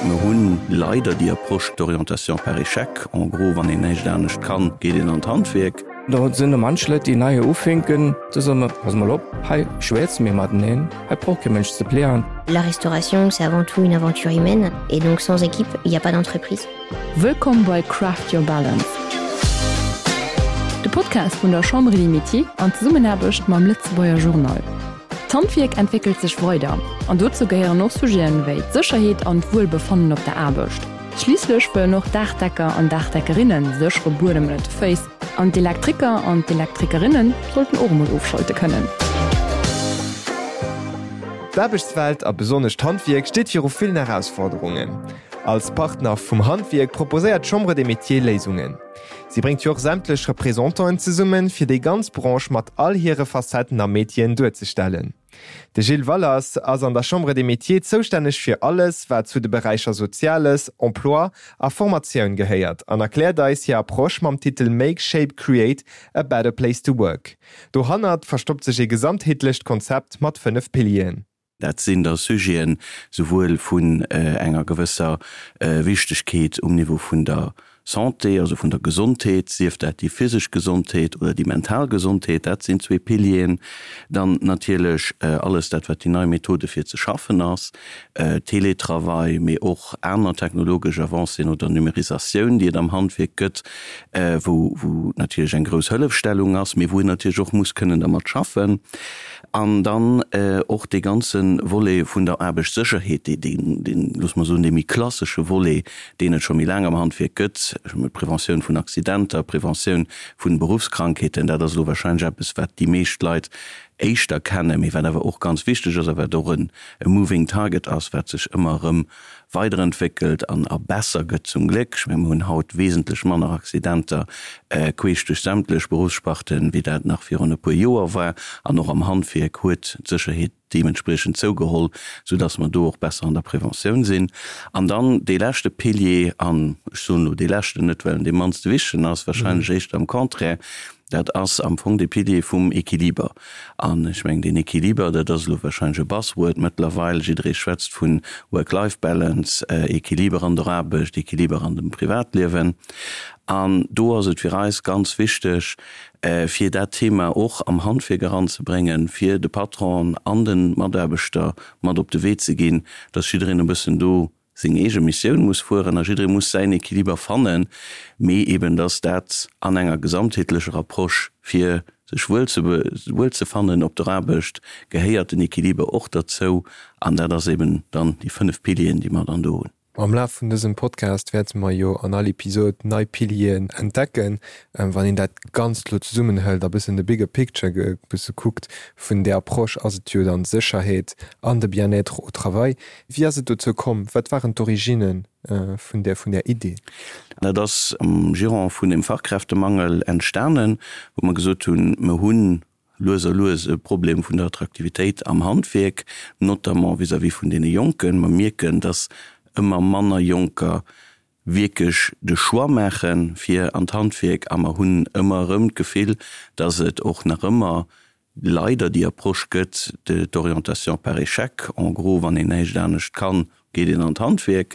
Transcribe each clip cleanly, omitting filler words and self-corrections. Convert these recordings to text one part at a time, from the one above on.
Mer hunn leider déi Approche d'orientation par échec, en gros, wann een näischt anescht kann, geet een an d'Handwierk. Do sinn der manch Leit, déi nei ufänken, do soe mer, Pass mol op, hei schwätze mir mateneen, hei brauch kee Mënsch ze plären. La restauration, c'est avant tout une aventure humaine et donc sans équipe, il n'y a pas d'entreprise. Wëllkomm bei Craft Your Balance, de Podcast vun der Chambre des Métiers an Zesummenaarbecht mam Lëtzebuerger Journal. D'Handwierk entwéckelt sech weider an dozou gehéieren och Sujeten wéi d'Sécherheet an d'Wuelbefannen op der Aarbecht. Schliisslech wëllen och Daachdecker an Daachdeckerinne séchere Buedem ënnert de Féiss an d'Elektriker an d'Elektrikerinne sollten och emol ofschalte kënnen. D'Aarbechtswelt a besonnesch d'Handwierk steet viru villen Erausforderungen. Als Partner vum Handwierk proposéiert d'Chambre des Métiers Léisungen. Si bréngt jo och sämtlech Représentanten zesummen, fir déi ganz Branche mat all hire Facetten a Métieren duerzestellen. De Gilles Wallers ass an der Chambre des Métiers zoustänneg fir alles, wat zu de Beräicher Soziales, Emploi a Formatioun gehéiert an erkläert eis hir Approche mam Titel Make, Shape, Create a better place to work. Dohannert verstoppt sech ee gesamtheetlecht Konzept mat 5 Pilieren. Dat sinn da Sujeten souwuel vun enger gewësser Wichtegkeet um Niveau vun der Santé, also vun der Gesondheet, sief dat déi physesch Gesondheet oder déi mental Gesondheet, dat sinn zwee Pilieren. Dann natierlech alles dat, wat déi nei Methode fir ze schaffen ass, Teletravail, mee och aner technologesch Avancéen oder Numérisatioun, déi et am Handwierk gëtt, wou natierlech eng grouss Hëllefstellung ass, mee wou een natierlech och muss kënnen dermat schaffen. An dann och dee ganze Volet vun der Aarbechtssécherheet, dee, deen, loosse mer soen, dee méi klassesche Volet, deen et scho méi laang am Handwierk gëtt, Preventioun vun Accidenter, Preventioun vun Beruffskrankheeten, dat ass elo wahrscheinlech eppes, wat déi meescht Leit éischter kennen, mee wat awer och ganz wichteg ass a wat och e moving target ass, wat sech ëmmer erëm weiderentwéckelt an a besser gëtt, zum Gléck. Ech mengen, mir hunn haut wesentlech manner Accidenter queesch duerch sämtlech Beruffssparten, wéi dat nach virun e puer Joer war. An och am Handwierk huet d'Sécherheet deementspriechend zougeholl, soudass mer do och besser an der Preventioun sinn. An dann dee leschte Pilier, an ech soen elo dee leschten net, well en dee mannste wichtegen ass, wahrscheinlech éischter am Contraire, Dat ass am Fong dee Pilier vum Equiliber. An ech mengen, deen Equiliber, dat ass elo wahrscheinlech e Buzzword mëttlerweil, jidderee schwätzt vu Work-Life-Balance, Equiliber an der Aarbecht, Equiliber an dem Privatliewen. An do ass et fir eis ganz wichteg, fir dat Thema och am Handwierk eranzebréngen, fir de Patronen an de Mataarbechter mat op de Wee ze ginn, dass jiddereen e bëssen do seng eege Missioun muss fueren a jidderee muss säin Equiliber fannen, mee eben dass dat an enger gesamtheetlecher Approche fir sech wuel ze wuel ze fannen op der Aarbecht gehéiert den Equiliber och derzou an dat ass eben dann déi 5 Pilieren, déi mer dann do hunn. Am Laf vun dësem Podcast wäerte mer jo an all Episod nei Pilieren entdecken. Wann een dat Ganzt elo zesummenhëlt a bëssen de bigger picture e bësse kuckt vun där Approche, ass et jo dann d'Sécherheet an de Bien-être au travail. Wéi ass et dozou komm? Wat waren d'Originne vun där vun där Idee? Dat ass am Giron vun dem Fachkräftemangel entstanen, wou mer gesot hunn, mer hu lues a lues e Problem vun der Attraktivitéit am Handwierk, notamment vis-à-vis vun deene Jonken. Mer mierken, dass ëmmer manner Jonker wierklech de Choix maache fir an d'Handwierk a mer hunn ëmmer erëm d'Gefill, dass et och nach ëmmer leider déi Approche gëtt de d'orientation par échec, en gros, wann een näischt anescht kann, geet een an d'Handwierk.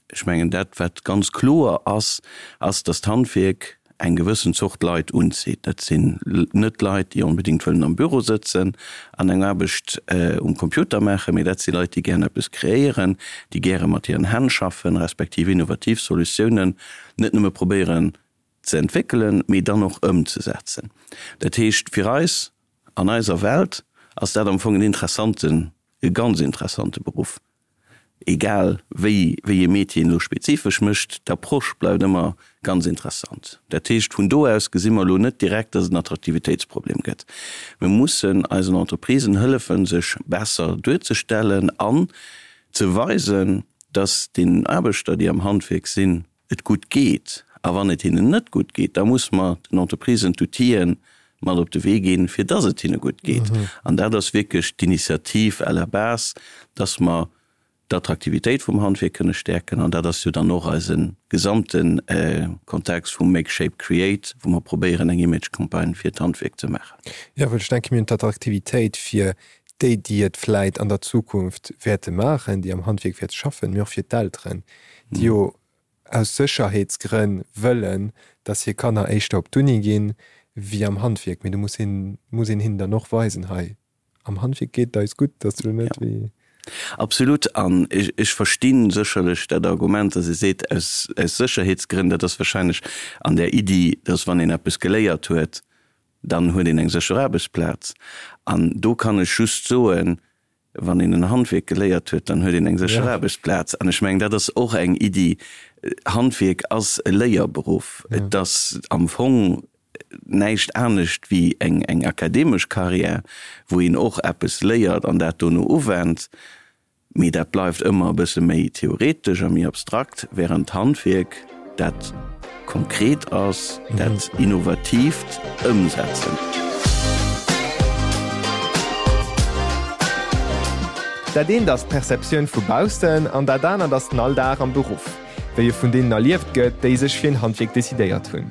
Ech mengen, dat wat ganz kloer ass, ass, dass d'Handwierk eng gewëssen Zort Leit unzitt. Dat sinn net Leit, déi onbedéngt wëllen am Büro sëtzen an eng Aarbecht um Computer maachen, mee dat si Leit, déi gären eppes kreéieren, déi gäre mat hiren Hänn schaffen, respektiv innovativ Solutiounen net nëmme probéieren ze entwéckelen, mee dann och ëmzesetzen. Dat heescht, fir eis, an eiser Welt, ass dat am Fong en interessanten, e ganz interessante Beruff. Egal wéi wéi ee Métier een elo spezifesch mécht, d'Approche bleift ëmmer ganz interessant. Dat heescht, vun do aus gesi mer elo net direkt, dass et en Attraktivitéitsproblem gëtt. Mir mussen eisen Entreprisen hëllefen, sech besser duerzestellen an ze weisen, dass deenen Aarbechter, déi am Handwierk sinn, et gutt geet. A wann et hinnen net gutt geet, da muss mer den Entreprisen d'Outile mat op de Wee ginn, fir dass et hinne gutt geet. An dat ass wierklech d'Initiativ à la base, dass mer d'Attraktivitéit vum Handwierk kënne stäerken. An dat ass jo dann och eise gesamte Kontext vum Make, Shape, Create, wou mer probéieren, eng Image-Campagne fir d'Handwierk ze maachen. Jo, well ech denke mir hunn d'Attraktivitéit fir. déi, déi et vläit an der Zukunft wäerte maachen, déi am Handwierk wäerte schaffen, mee och fir d'Elteren, déi jo aus Sécherheetsgrënn wëllen, dass hir Kanner éischter op d'Uni ginn, wéi am Handwierk. Mee do muss een, muss een hinnen dann och weisen, hei am Handwierk geet et eis gutt, dass du net wéi. Absolut. An ech versti sécherlech dat Argument, dass ee seet, aus Sécherheetsgrënn, dat ass wahrscheinlech an där Iddi, dass wann een eppes geléiert huet, dann huet een eng sécher Aarbechtsplaz. An do kann ech just soen, wann een en Handwierk geléiert huet, dann huet een eng sécher Aarbechtsplaz. An ech mengen, dat ass och eng Iddi. Handwierk ass e Léierberuff. Et ass am Fong näischt anescht wéi eng akademesch Carrière, wou een och eppes léiert an dat dono uwennt. Mee dat bleift ëmmer e bësse méi theoretesch a méi abstrakt, wärend d'Handwierk dat konkret ass, dat innovatiivt Ëmsetzen. Dat eent ass d'Perceptioun vu baussen an dat anert ass den Alldag am Beruff, wéi e vun deenen erlieft gëtt, déi sech fir en Handwierk decidéiert hunn.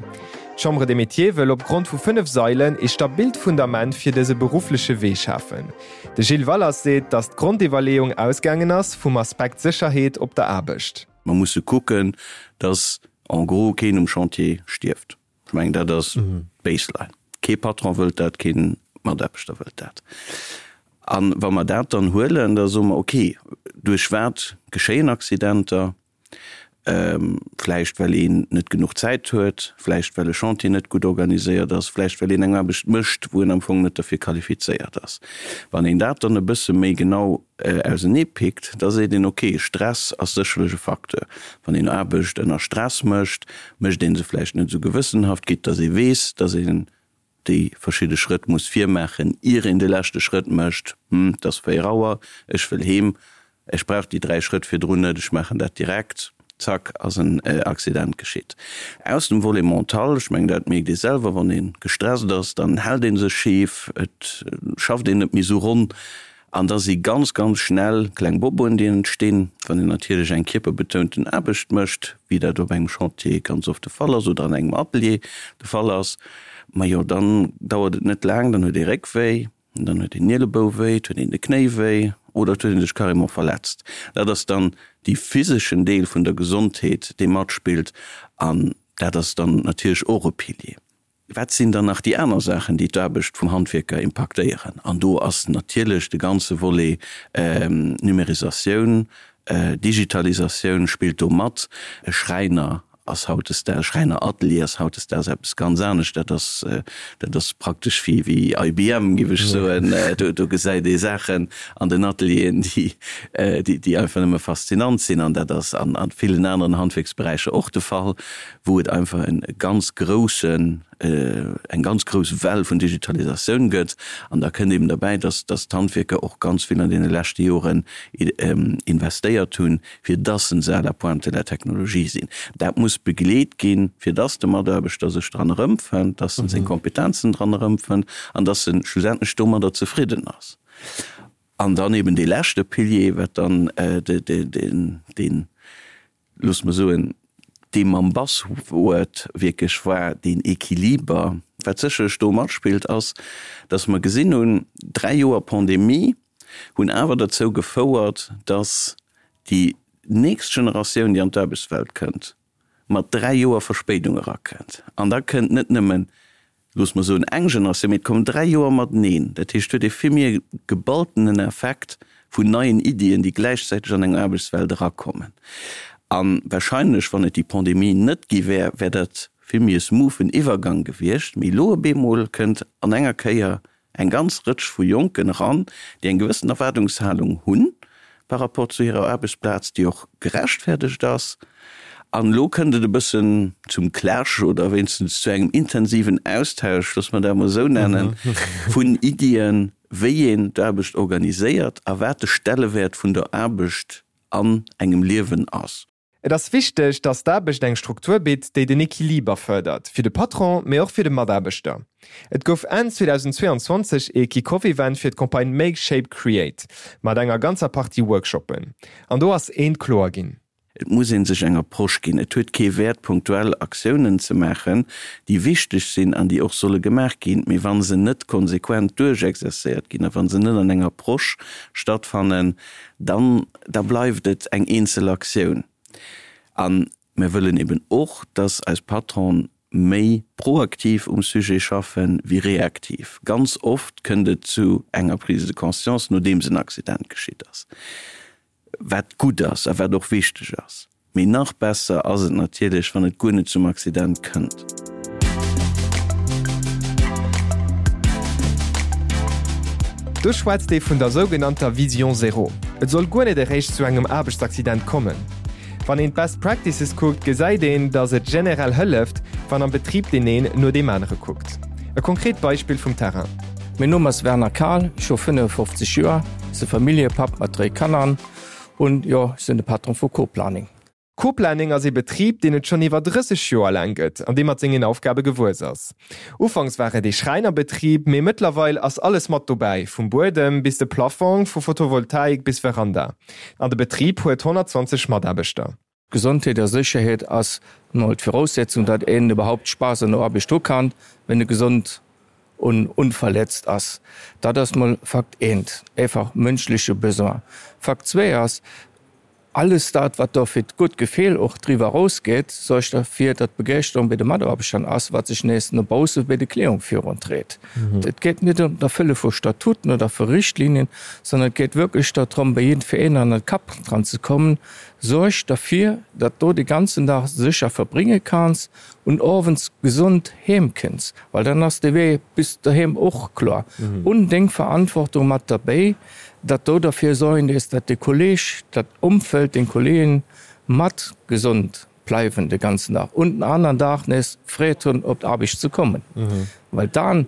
D'Chambre des Métiers wëll op Grond vu 5 Sailen ee stabilt Fundament fir dëse beruffleche Wee schafen. De Gilles Wallers seet, datt d'Grondiwwerleeung ausgaangen ass vum Aspekt Sécherheet op der Aarbecht. Mer musse kucken, datt en gros keen um Chantier stierft. Ech mengen, dat ass d'Baseline. Kee Patron wëllt dat, kee Mataarbechter wëllt dat. A wa mer dat dann huelen, da soe mer, okay, duerch wat geschéien Accidenter? Vläicht well een net genuch Zäit huet, vläicht well e Chantier net gutt organiséiert ass, vläicht well een eng Aarbecht mécht, wou en am Fong net derfir qualifizéiert ass. Wann een dat dann e bësse méi genau ausenee pickt, da seet een, ok, Stress ass sécherlech e Facteur. Wann een Aarbecht ënner Stress mécht, mécht ee se vläicht net esou gewëssenhaft, quitte datt ee weess, datt een déi verschidde Schrëtt muss virmaachen, ier een de leschte Schrëtt mécht, Hm, et ass 4 Auer, ech wëll heem, ech brauch déi 3 Schrëtt virdrun net, ech maachen dat direkt, zack, ass en Accident geschitt. Aus dem Volet mental, ech mengen, dat mierkt ee selwer, wann ee gestresst ass, dann hält ee sech schif, et schafft een net méi esou ronn. An da si ganz, ganz schnell kleng Boboen, déi entstinn, wann een natierlech eng kierperbetounten Aarbecht mécht, wéi dat op engem Chantier ganz oft de Fall ass oder an engem Atelier de Fall ass. Majo, dann dauert et net laang, dann huet ee Réckwéi, dann huet een Nielebou wéi, et huet een de Knéi wéi oder et huet ee sech carrément verletzt. Dat ass dann dee physeschen Deel vun der Gesondheet, dee matspillt an dat ass dann natierlech och e Pilier. Wat sinn dann nach déi aner Saachen, déi d'Aarbecht vum Handwierker impaktéieren? An do ass natierlech de ganze Volet Numérisatioun, Digitalisatioun spillt do mat. E Schräiner ass hautdesdaags, e Schräineratelier ass hautdesdaags eppes ganz anescht. Dat ass, dat ass praktesch wéi, wéi IBM, géif ech soen. Do gesäit ee Saachen an den Atelieren, déi, déi einfach nëmme faszinant sinn. An dat ass an villen aneren Handwierksberäicher och de Fall. wou et einfach e ganz groussen, eng ganz grouss Well vun Digitalisatioun gëtt. An da kënnt eben derbäi, dass, dass d'Handwierker och ganz vill an deene leschte Joren investéiert hunn, fir dass se à la pointe de la technologie sinn. Dat muss begleet ginn, fir dass de Mataarbechter sech dran erëmfënnt, dass en seng Kompetenzen dran erëmfënnt an dass en schlussendlech domadder zefridden ass. An dann eben dee leschte Pilier, wat dann deen, loosse mer soen, dee mam Buzzword wierklech war, deen Equiliber. Wat sécherlech do matspillt, ass, dass mer gesinn hunn, 3 Joer Pandemie hunn awer derzou gefouert, dass déi nächst Generatioun, déi an d'Aarbechtswelt kënnt, mat 3 Joer Verspéidung erakënnt. An da kënnt net nëmmen loosse mer soen, eng Generatioun, mee et kommen 3 Joer mateneen. Dat heescht, et huet ee vill méi e geballtenen Effekt vun neien Iddien, déi gläichzäiteg an eng Aarbechtswelt erakommen. A wahrscheinlech, wann et déi Pandemie net gi wär, wär dat vill méi e smoothen Iwwergang gewiescht. Mee elo op eemol kënnt an enger Kéier eng ganz Rëtsch vu Jonken eran, déi eng gewëssen Erwaardungshalung hunn par rapport zu hirer Aarbechtsplaz, déi och gerechtfertegt ass. An elo kënnt et e bëssen zum Clash oder wéinstens zu engem intensiven Austausch, loosse mer dat emol esou nennen, vun Iddien, wéi een d'Aarbecht organiséiert a wat de Stellewäert vun der Aarbecht an engem Liewen ass. Et ass wichteg, datt d'Aarbecht eng Struktur bitt, déi den Equiliber fërdert, fir de Patron, mee och fir de Mataarbechter. Et gouf Enn 2022 ee Kick-Off-Event fir d'Campagne Make Shape Create mat enger ganzer Partie Workshoppen. An do ass eent kloer ginn. Et muss ee sech eng Approche ginn. Et huet kee Wäert, punktuell Aktiounen ze maachen, déi wichteg sinn an déi och solle gemaach ginn, mee wa se net konsequent duerchexercéiert ginn a wa se net an enger Approche stattfannen, dann da bleift et eng eenzel Aktioun. A mir wëllen eben och, dass eis Patronen méi proaktiv um Sujet schaffen wéi reaktiv. Ganz oft kënnt et zu enger Prise de conscience, nodeems en Accident geschitt ass, wat gutt ass a wat och wichteg ass. Mee nach besser ass et natierlech, wann et guer net zum Accident kënnt. Do schwätzt ee vun der sougenannter Vision zéro. Et soll guer net eréischt zu engem Aarbechtsaccident kommen. Wann een d'Best Practices kuckt, gesäit een, datt et generell hëlleft, wann am Betrib deen een no deem anere kuckt. E konkret Beispill vum Terrain. Mäin Numm ass Werner Kahl, ech hu 55 Joer, si Familljepapp mat dréi Kanner un jo, ech sinn de Patron vu Co-Planning. Co-Planning ass ee Betrib, deen et schonn iwwer 30 Joer laang gëtt an dee mat sengen Aufgabe gewuess ass. Ufanks war et ee Schräinerbetrib, mee mëttlerweil ass alles mat dobäi, vum Buedem bis de Plafong, vu Photovoltaik bis Veranda. An de Betrib huet 120 Mataarbechter. Gesondheet a Sécherheet ass mol d'Viraussetzung, datt een iwwerhaupt Spaass an der Aarbecht hu kann, wenn e gesond un unverletzt ass. Dat ass mol Fakt eent, einfach mënschleche Besoin. Fakt zwee ass, Alles dat, wat do fir d'gutt Gefill och driwwer erausgeet, suergt derfir, datt d'Begeeschterung bei de Mataarbechtern ass, wat sech nees no bausse bei de Clienten viruntreet. Et geet net ëm d'Erfëlle vu Statuten oder vu Richtlinien, sondern et geet wierklech dorëm, bei jiddwereen an de Kapp dran ze kommen, Suerg derfir, datt do de ganzen Dag sécher verbrénge kanns un owends gesond heem kënns, well dann ass de Wee bis doheem och kloer. Un deng Verantwortung mat derbéi, datt do derfir sorgen dees, datt de Kolleg, dat Umfeld, deng Kollegen mat gesond bleiwen de ganzen Dag un den aneren Dag nees Freed hunn op d'Aarbecht ze kommen. Well dann,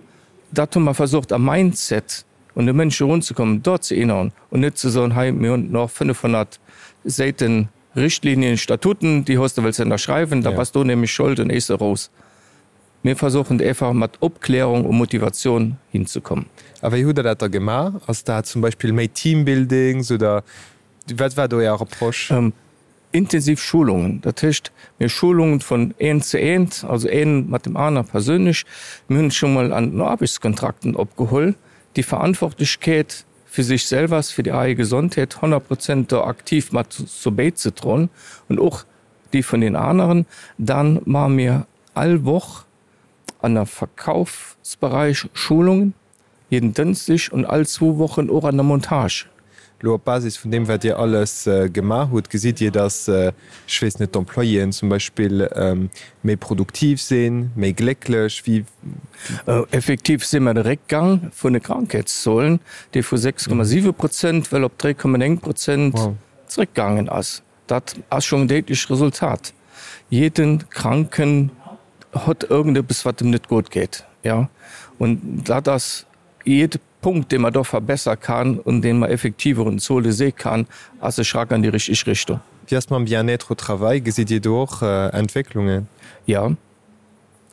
dat hu mer versucht am Mindset un de Mënsch erunzekommen, dort ze erinnern un net ze soen, hei mir hunn nach 500 Säiten Richtlinien, Statuten, déi hues de wëlls ënnerschreiwen, da bass du nämlech schold un eis eros. Mir versuchen einfach mat Opklärung u Motivation hinzekommen. A wéi hutt Der dat da gemaach? Ass dat zum Beispill méi Teambuildings oder wat war do Är Approche? Intensiv Schulungen, dat heescht mir Schulungen vun eent zu eent, also een mat dem aner persönlech. Mir hunn scho mol an den Aarbechtskontrakten opgeholl, déi Verantwortlechkeet fir sech selwer, fir déi eige Gesondheet 100 Prozent do aktiv mat zu bäizedroen und och déi vun den aneren. Dann maache mir all Woch an der Verkaufsbereich Schulungen, jeden Dënschdeg und all zwou Wochen och an der Montage. Elo op Basis vun deem, wat Dir alles gemaach hutt, gesitt Dir, datt, ech weess net, d'Employéen zum Beispill méi produktiv sinn, méi glécklech? Wéi? Effektiv si mer de Réckgang vun de Krankheetszuelen, dee vu 6,7 Prozent well op 3,9 Prozent zréckgaangen ass. Dat ass schonn en déidlecht Resultat. Jeden Kranken hott irgendeppes, wat em net gutt geet, jo. Und dat ass jede Punkt, dee mer do verbessere kann un dee mer effektiv och un Zuele si kann, ass e Schrack an déi richteg Richtung. Wéi ass mam Bien-être au travail? Gesitt Dir do och Entwécklungen? Jo.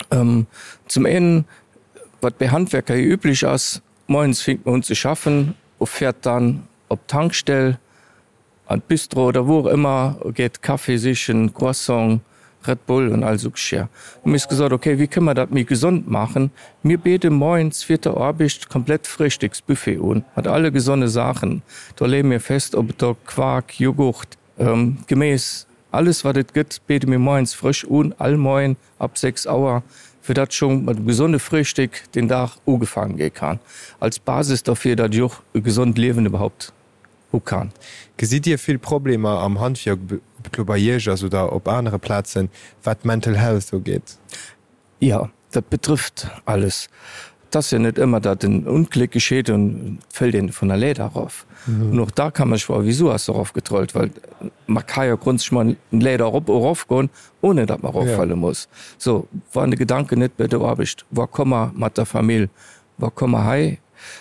Zum een, wat bei Handwerker jo üblech ass, moies fänkt mer un ze schaffen u fäert dann op d'Tankstell, An d'Bistro oder wou och ëmmer, geet Café sichen, Croissant, Red Bull und all sou Geschirr. Hu mir gesot, ok, wéi kënne mer dat méi gesond maachen? Mir bidde moies fir der Aarbecht komplett Frühstücksbuffet un, mat alle gesonne Saachen. Do leeë mir fest, ob et do Quark, Joghurt, Geméis, alles wat et gëtt, bidde mir moies frësch un, all Moien ab 6 Auer, fir datt scho mat engem gesonde Frühstück den Dag ugefaangen gi kann, als Basis derfir, datt ech och e gesond Liewen iwwerhaupt hu kann. Gesitt Dir vill Problemer am Handwierk, ob et lo bei Iech ass oder op anere Plazen, wat d'Mental Health ugeet? Jo, dat betrëfft alles. Et ass jo net ëmmer, datt en Ongléck geschitt an et fëllt een vun der Leeder erof. An och da kann man sech froen, Wisou ass se erofgetrollt? Well man ka jo grondsätzlech mol eng Leeder erop erofgoen, ohne datt man eroffale muss. So, wann de Gedanken net bei der Aarbecht war, komm mer mat der Famill, Wa komm mer hei.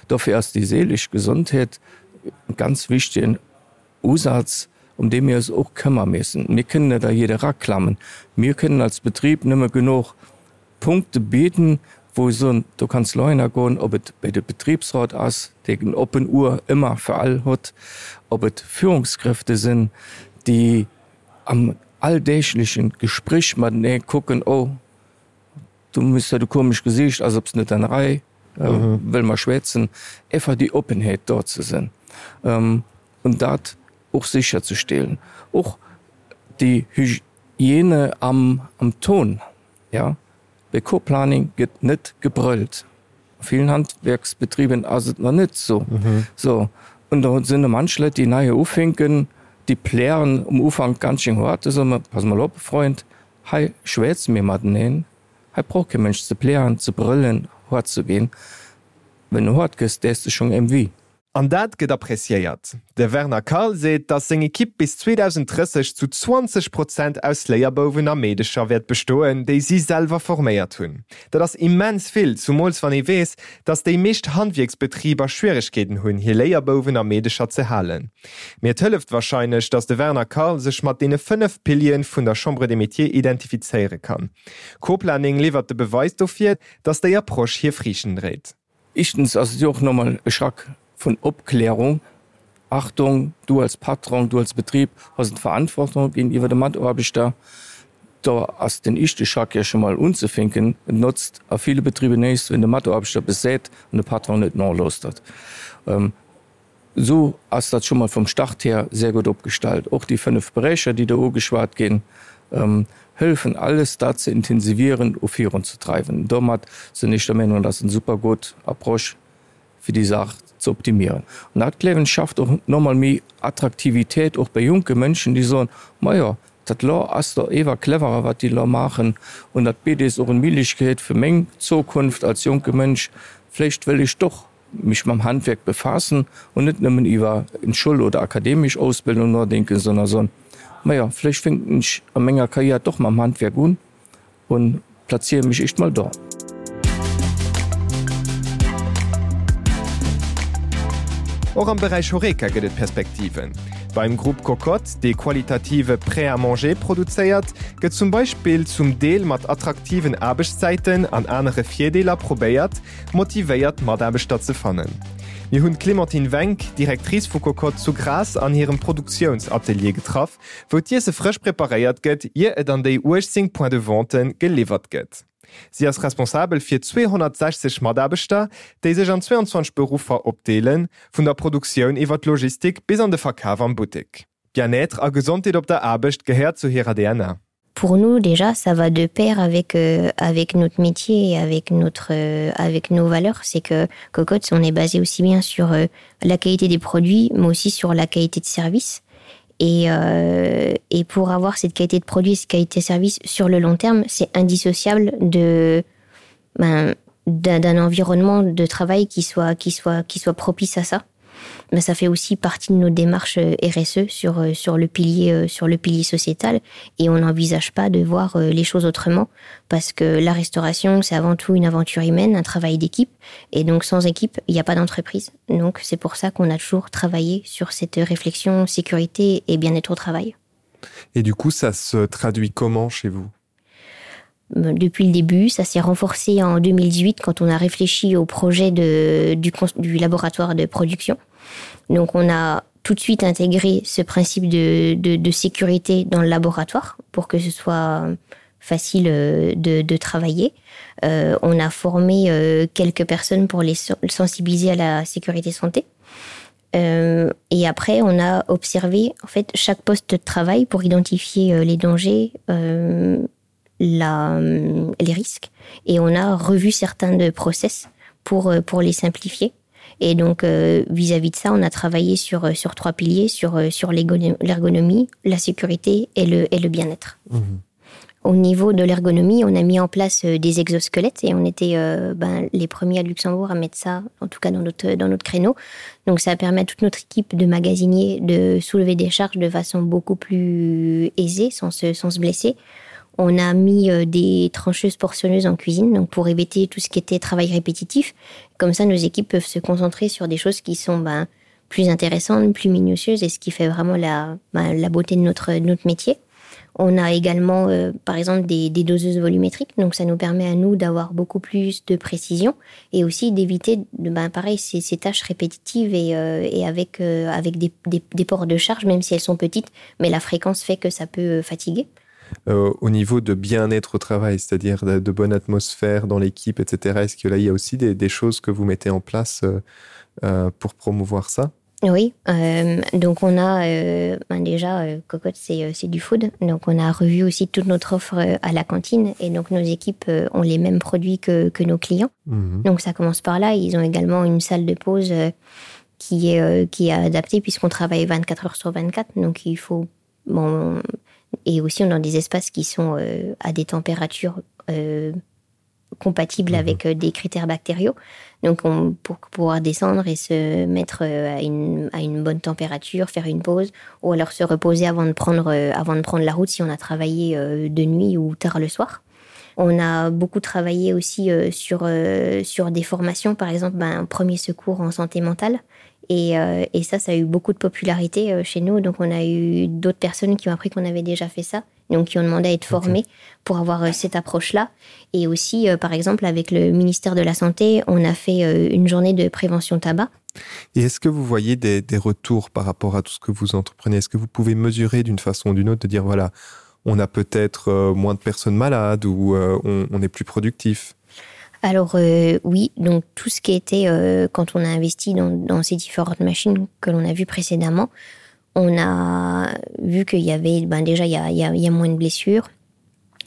Dofir ass déi seelesch Gesondheet e ganz wichtegen Usaz, ëm dee mir eis och këmmer missen. Mir kënnen net a jidde eraklammen. Mir kënnen als Betrib nëmme genuch Punkte bidden, wou ech soen, do kanns de elo goen, ob et bei de Betriebsrat ass, dee en oppen Uhr ëmmer fir all huet, ob et Führungskräfte sinn, déi. am alldäglechen Gespréch matenee kucken, oh, du hues dat e komesch Gesiicht, ass op s net an der Rei, wëlle mer schwätzen, einfach déi Oppenheet do ze sinn an dat och sécherzestellen. Och déi Hygiène am Ton, jo. Bei Co-Planning gëtt net gebrëllt. A villen Handwerksbetriben ass et nach net esou. So, und da sinn der manch Leit, déi nei ufänken, déi plären um Ufank ganz schön hart, da soe mer, Pass mol op, Freund, hei schwätze mir mateneen, hei brauch kee Mënsch ze plären, ze brëllen, hart ze ginn. Wenn du hart gëss, däers de schonn ém wéi. An dat gëtt appreciéiert. De Werner Karl seet, datt seng Ekipp bis 2030 zu 20 Prozent aus Léierbouwen a Meedecher wäert bestoen, déi si selwer forméiert hunn. Dat ass immens vill, zumools wann ee weess, datt déi meescht Handwierksbetriber Schwieregkeeten hunn, hir Léierbouwen a Meedecher ze halen. Mee et hëlleft warscheinlech, datt de Werner Karl sech mat deene 5 Piliere vun der Chambre des Métiers identifizéiere kann. Co-Planning liwwert de Beweis dofir, datt déi Approche hir Friichten dréit. Éischtens ass et jo och normal e Schrack vun Opklärung, Achtung, du als Patron, du als Betrib hues eng Verantwortung géintiwwer de Mataarbechter. Do ass den éischte Schrack jo scho mol unzefänken. Et notzt a ville Betriber näischt, wenn de Mataarbechter eppes seet an de Patron net nolauschtert. Esou ass dat scho mol vum Start hier sehr gutt opgestallt. Och déi 5 Beräicher, déi do ugeschwat ginn, hëllefen alles dat ze intensivieren u virunzedreiwen. Domat sinn ech der Meenung, dat ass eng super gutt Approche fir déi Saach ze optimieren. An dat, gleewen ech, schafft och nochmol méi Attraktivitéit och bei jonke Mënschen, déi soen, Majo, dat lo ass do ewer cleverer, wat déi lo maachen, an dat bitt eis och eng Méiglechkeet fir meng Zukunft als jonke Mënsch, vläicht wëll ech doch mech mam Handwerk befaassen und net nëmmen iwwer eng Schoul oder akademesch Ausbildung nodenken, sondern soen, majo, vläicht fänken ech a menger Karriär doch mam Handwerk un und plaziere mech éischt mol do. Och am Beräich Horeca gëtt et Perspektiven. Beim Grupp Cocotte, dee qualitative Prêt-à-manger produzéiert, gëtt zum Beispill zum Deel mat attraktiven Aarbechtszäiten an anere Virdeeler probéiert, motivéiert Mataarbechter ze fannen. Mir hunn d'Clémentine Wenck, Directrice vu Cocotte zu Grass an hirem Produktiounsatelier getraff, wou d'Iesse frësch preparéiert gëtt, ier et an déi 18 Points de vente geliwwert gëtt. Si ass responsabel fir 260 Mataarbechter, déi sech an 22 Beruffer opdeelen, vun der Produktioun iwwer d'Logistik bis an de Verkaf am Buttek. Bien-être a Gesondheet op der Aarbecht gehéiert zu hirer DNA. Pour nous déjà ça va de pair avec euh, avec notre métier et avec notre euh, avec nos valeurs c'est que cocotte on est basé aussi bien sur euh, la qualité des produits mais aussi sur la qualité de service et euh, et pour avoir cette qualité de produit cette qualité de service sur le long terme c'est indissociable de ben d'un environnement de travail qui soit qui soit qui soit propice à ça mais ça fait aussi partie de nos démarches euh, RSE sur euh, sur le pilier euh, sur le pilier sociétal et on n'envisage pas de voir les choses autrement parce que la restauration c'est avant tout une aventure humaine un travail d'équipe et donc sans équipe il n'y a pas d'entreprise donc c'est pour ça qu'on a toujours travaillé sur cette réflexion sécurité et bien-être au travail et du coup ça se traduit comment chez vous depuis le début ça s'est renforcé en 2018 quand on a réfléchi au projet de du, du laboratoire de production donc on a tout de suite intégré ce principe de, de, de sécurité dans le laboratoire pour que ce soit facile euh, de, de travailler euh, on a formé euh, quelques personnes pour les sensibiliser à la sécurité santé euh, et après on a observé en fait chaque poste de travail pour identifier euh, les dangers euh, la, euh, les risques et on a revu certains de process pour, euh, pour les simplifier. Et donc euh, vis-à-vis euh, -vis de ça, on a travaillé sur, euh, sur trois piliers sur, sur l'ergonomie, la sécurité et le, et le bien-être. Mmh. Au niveau de l'ergonomie, on a mis en place des exosquelettes et on était euh, ben, les premiers à Luxembourg à mettre ça, en tout cas dans notre, dans notre créneau. Donc ça permet à toute notre équipe de magasiniers de soulever des charges de façon beaucoup plus aisée, sans se, sans se blesser. On a mis euh, des trancheuses portionneuses en cuisine donc pour éviter tout ce qui était travail répétitif. Comme ça, nos équipes peuvent se concentrer sur des choses qui sont ben, plus intéressantes, plus minutieuses et ce qui fait vraiment la, ben, la beauté de notre, de notre métier. On a également euh, par exemple des, des doseuses volumétriques, donc ça nous permet à nous d'avoir beaucoup plus de précision et aussi d'éviter de ben, pareil ces, ces tâches répétitives et, euh, et avec, euh, avec des, des, des ports de charge, même si elles sont petites, mais la fréquence fait que ça peut euh, fatiguer. Euh, au niveau de bien-être au travail, c'est-à-dire de, de bonne atmosphère dans l'équipe, etc. Est-ce que là il y a aussi des, des choses que vous mettez en place euh, euh, pour promouvoir ça? Oui, euh, donc on a euh, ben déjà euh, cocotte c'est euh, du food donc on a revu aussi toute notre offre euh, à la cantine et donc nos équipes euh, ont les mêmes produits que, que nos clients mmh. donc ça commence par là ils ont également une salle de pause euh, qui est euh, qui est adaptée puisqu'on travaille 24 heures sur 24 donc il faut bon et aussi on a des espaces qui sont euh, à des températures euh, compatible mmh. avec euh, des critères bactériaux donc on pour pouvoir descendre et se mettre euh, à une, à une bonne température faire une pause ou alors se reposer avant de prendre euh, avant de prendre la route si on a travaillé de nuit ou tard le soir on a beaucoup travaillé aussi sur sur des formations par exemple ben, un premier secours en santé mentale et, et ça ça a eu beaucoup de popularité chez nous donc on a eu d'autres personnes qui ont appris qu'on avait déjà fait ça donc qui ont demandé à être formés okay. pour avoir euh, cette approche là et aussi euh, par exemple avec le ministère de la santé on a fait euh, une journée de prévention tabac et est-ce que vous voyez des, des retours par rapport à tout ce que vous entreprenez est-ce que vous pouvez mesurer d'une façon ou d'une autre de dire voilà on a peut-être euh, moins de personnes malades ou euh, on, on est plus productif alors euh, oui donc tout ce qui était euh, quand on a investi dans, dans ces différentes machines que l'on a vu précédemment on a vu qu'il y avait ben déjà il y a, il y a, il y a moins de blessures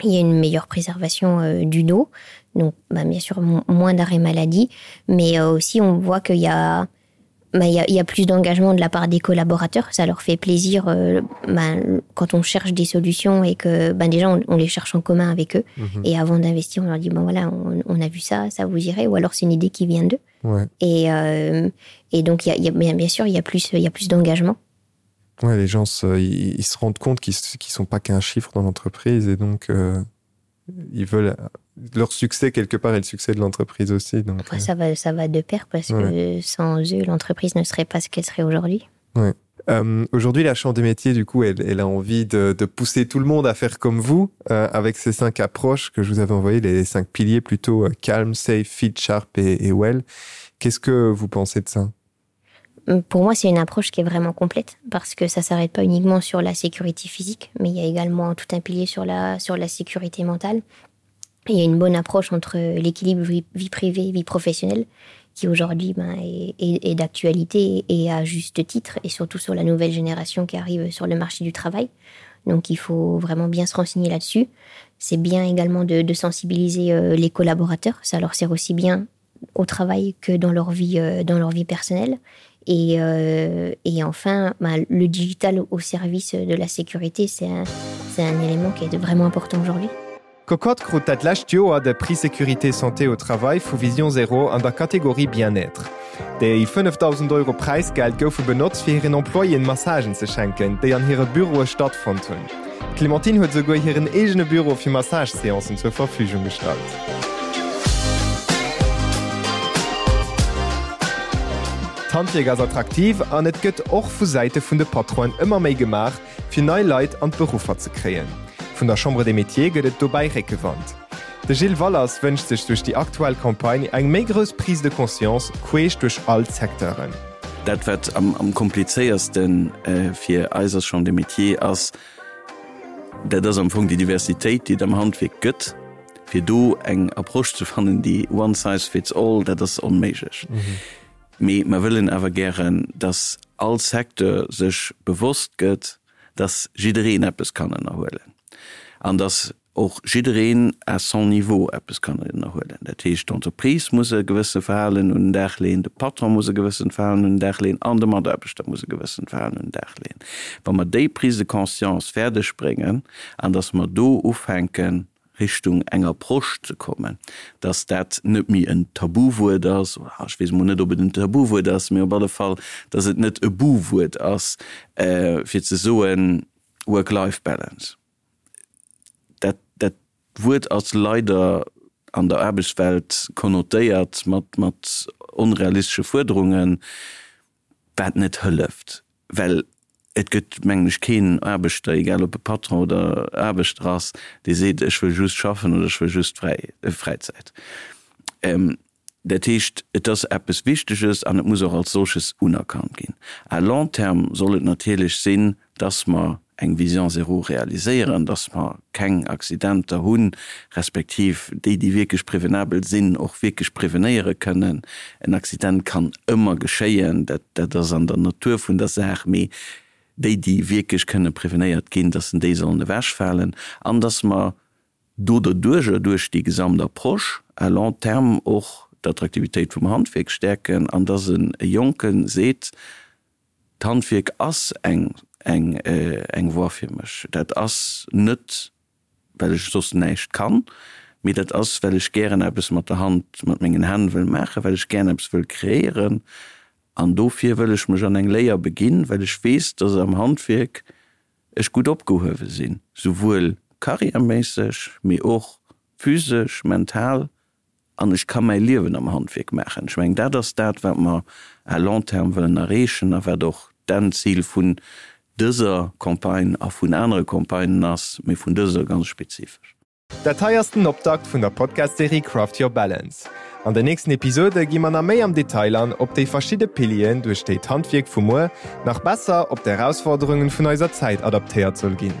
il y a une meilleure préservation euh, du dos donc ben, bien sûr moins d'arrêt maladie mais euh, aussi on voit qu'il y a ben, il y a, il y a plus d'engagement de la part des collaborateurs ça leur fait plaisir euh, ben, quand on cherche des solutions et que ben déjà on, on les cherche en commun avec eux mmh. et avant d'investir on leur dit bon voilà on, on a vu ça ça vous irait ou alors c'est une idée qui vient d'eux ouais. et euh, et donc il y a, il y a bien, bien sûr il y a plus il y a plus d'engagement Ouais, les gens se, ils, ils se rendent compte qu'ils ne sont pas qu'un chiffre dans l'entreprise et donc euh, ils veulent leur succès quelque part et le succès de l'entreprise aussi. Donc, enfin, euh... ça, va, ça va de pair parce ouais. que sans eux, l'entreprise ne serait pas ce qu'elle serait aujourd'hui. Ouais. Euh, aujourd'hui, la Chambre des métiers, du coup, elle, elle a envie de, de pousser tout le monde à faire comme vous euh, avec ces cinq approches que je vous avais envoyées, les cinq piliers plutôt euh, calm, safe, fit, sharp et, et well. Qu'est-ce que vous pensez de ça? Pour moi, c'est une approche qui est vraiment complète parce que ça s'arrête pas uniquement sur la sécurité physique, mais il y a également tout un pilier sur la, sur la sécurité mentale. Il y a une bonne approche entre l'équilibre vie, vie privée, vie professionnelle qui aujourd'hui ben, est, est, est d'actualité et à juste titre et surtout sur la nouvelle génération qui arrive sur le marché du travail. Donc il faut vraiment bien se renseigner là-dessus. C'est bien également de, de sensibiliser euh, les collaborateurs, ça leur sert aussi bien au travail que dans leur vie, euh, dans leur vie personnelle. Et, euh, et enfin, ben, le digital au service de la sécurité, c'est un, un élément qui est vraiment important aujourd'hui. Cocotte krut dat lescht Joer de Prix Sécurité Santé au Travail vu Vision Zéro an der Kategorie Bien-être. Déi 5.000 Euro Präisgeld goufe benotzt fir hiren Employéen Massagen ze schenken, déi an hire Büroe stattfonnt hunn. D'Clémentine huet esouguer hiren eegene Büro fir Massage-Seancen zur Verfügung gestallt. D'Handwierk ass attraktiv an et gëtt och vu Säite vun de Patronen ëmmer méi gemaach, fir nei Leit an d'Beruffer ze kréien. Vun der Chambre des Métiers gëtt et dobäi Réckewand. De Gilles Wallers wënscht sech duerch déi aktuell Campagne eng méi grouss Prise de conscience queesch duerch all d'Secteuren. Dat wat am komplizéierste fir eis als Chambre des Métiers ass, dat ass am Fong déi Diversitéit, déi et am Handwierk gëtt, fir do eng Approche ze fannen, déi one size fits all, dat ass onméiglech. Mee mer wëllen awer gären, dass all Secteur sech bewosst gëtt, dass jiddereen eppes kann ënnerhuelen an dass och jiddereen à son niveau eppes kann ënnerhuelen. Dat heescht, d'Entreprise muss e gewësse Verhalen un den Dag leeën, de Patron muss e gewëssent Verhalen un den Dag leeën an de Mataarbechter muss e gewëssent Verhalen un den Dag leeën. Wa mer déi Prise de conscience fäerdeg bréngen an dass mer do ufänken, Richtung eng Approche ze kommen, dass dat net méi en Tabuwuert ass, oder ech weess emol net, ob et en Tabuwuert ass, mee op alle Fall, dass et net e Buwuert ass, fir ze soen, Work-Life-Balance. Dat, dat Wuert ass leider an der Aarbechtswelt konnotéiert mat, mat onrealistesche Fuerderungen, wat net hëlleft, well. Et gëtt, mengen ech, keen Aarbechter, egal ob e Patron oder Aarbechter ass, dee seet, ech wëll just schaffen oder ech wëll just Fräizäit. Dat heescht, et ass eppes Wichteges an et muss och als solches unerkannt ginn. À long terme soll et natierlech sinn, dass mer eng Vision zéro realiséieren, dass mer keng Accidenter hunn, respektiv déi, déi wierklech prevenabel sinn, och wierklech prevenéiere kënnen. En Accident kann ëmmer geschéien, dat, dat ass an der Natur vun der Saach, mee déi, déi wierklech kënne prevenéiert ginn, dass déi sollen ewechfalen an dass mer do derduercher, duerch déi gesamt Approche à long terme och d'Attraktivitéit vum Handwierk stäerken an dass e Jonke seet, D'Handwierk ass eng eng eng Voie fir mech. Dat ass net, well ech soss näischt kann, mee dat ass, well ech gären eppes mat der Hand, mat mengen Hänn wëll maachen, well ech gären eppes wëll kreéieren. An dofir wëll ech mech an eng Léier beginn, well ech weess, dass am Handwierk ech gutt opgehuewe sinn, souwuel karriärméisseg, mee och physesch, mental an ech ka mäi Liewen am Handwierk maachen. Ech mengen, dat ass dat, wat mer à long terme wëllen erreechen a wat och d'Endzil vun dëser Campagne a vun anere Campagnen ass, mee vun dëser ganz spezifesch. Dat hei ass den Optakt vun der Podcast-Serie Craft Your Balance. An den nächsten Episode gi mer nach méi am Detail an op déi verschidde Pilieren, duerch déi d'Handwierk vu muer nach besser op d'Erausforderungen vun eiser Zäit adaptéiert soll ginn.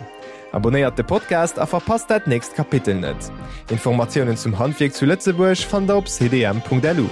Abonnéiert de Podcast a verpasst dat nächst Kapitel net. Informatiounen zum Handwierk zu Lëtzebuerg fannt der op cdm.lu.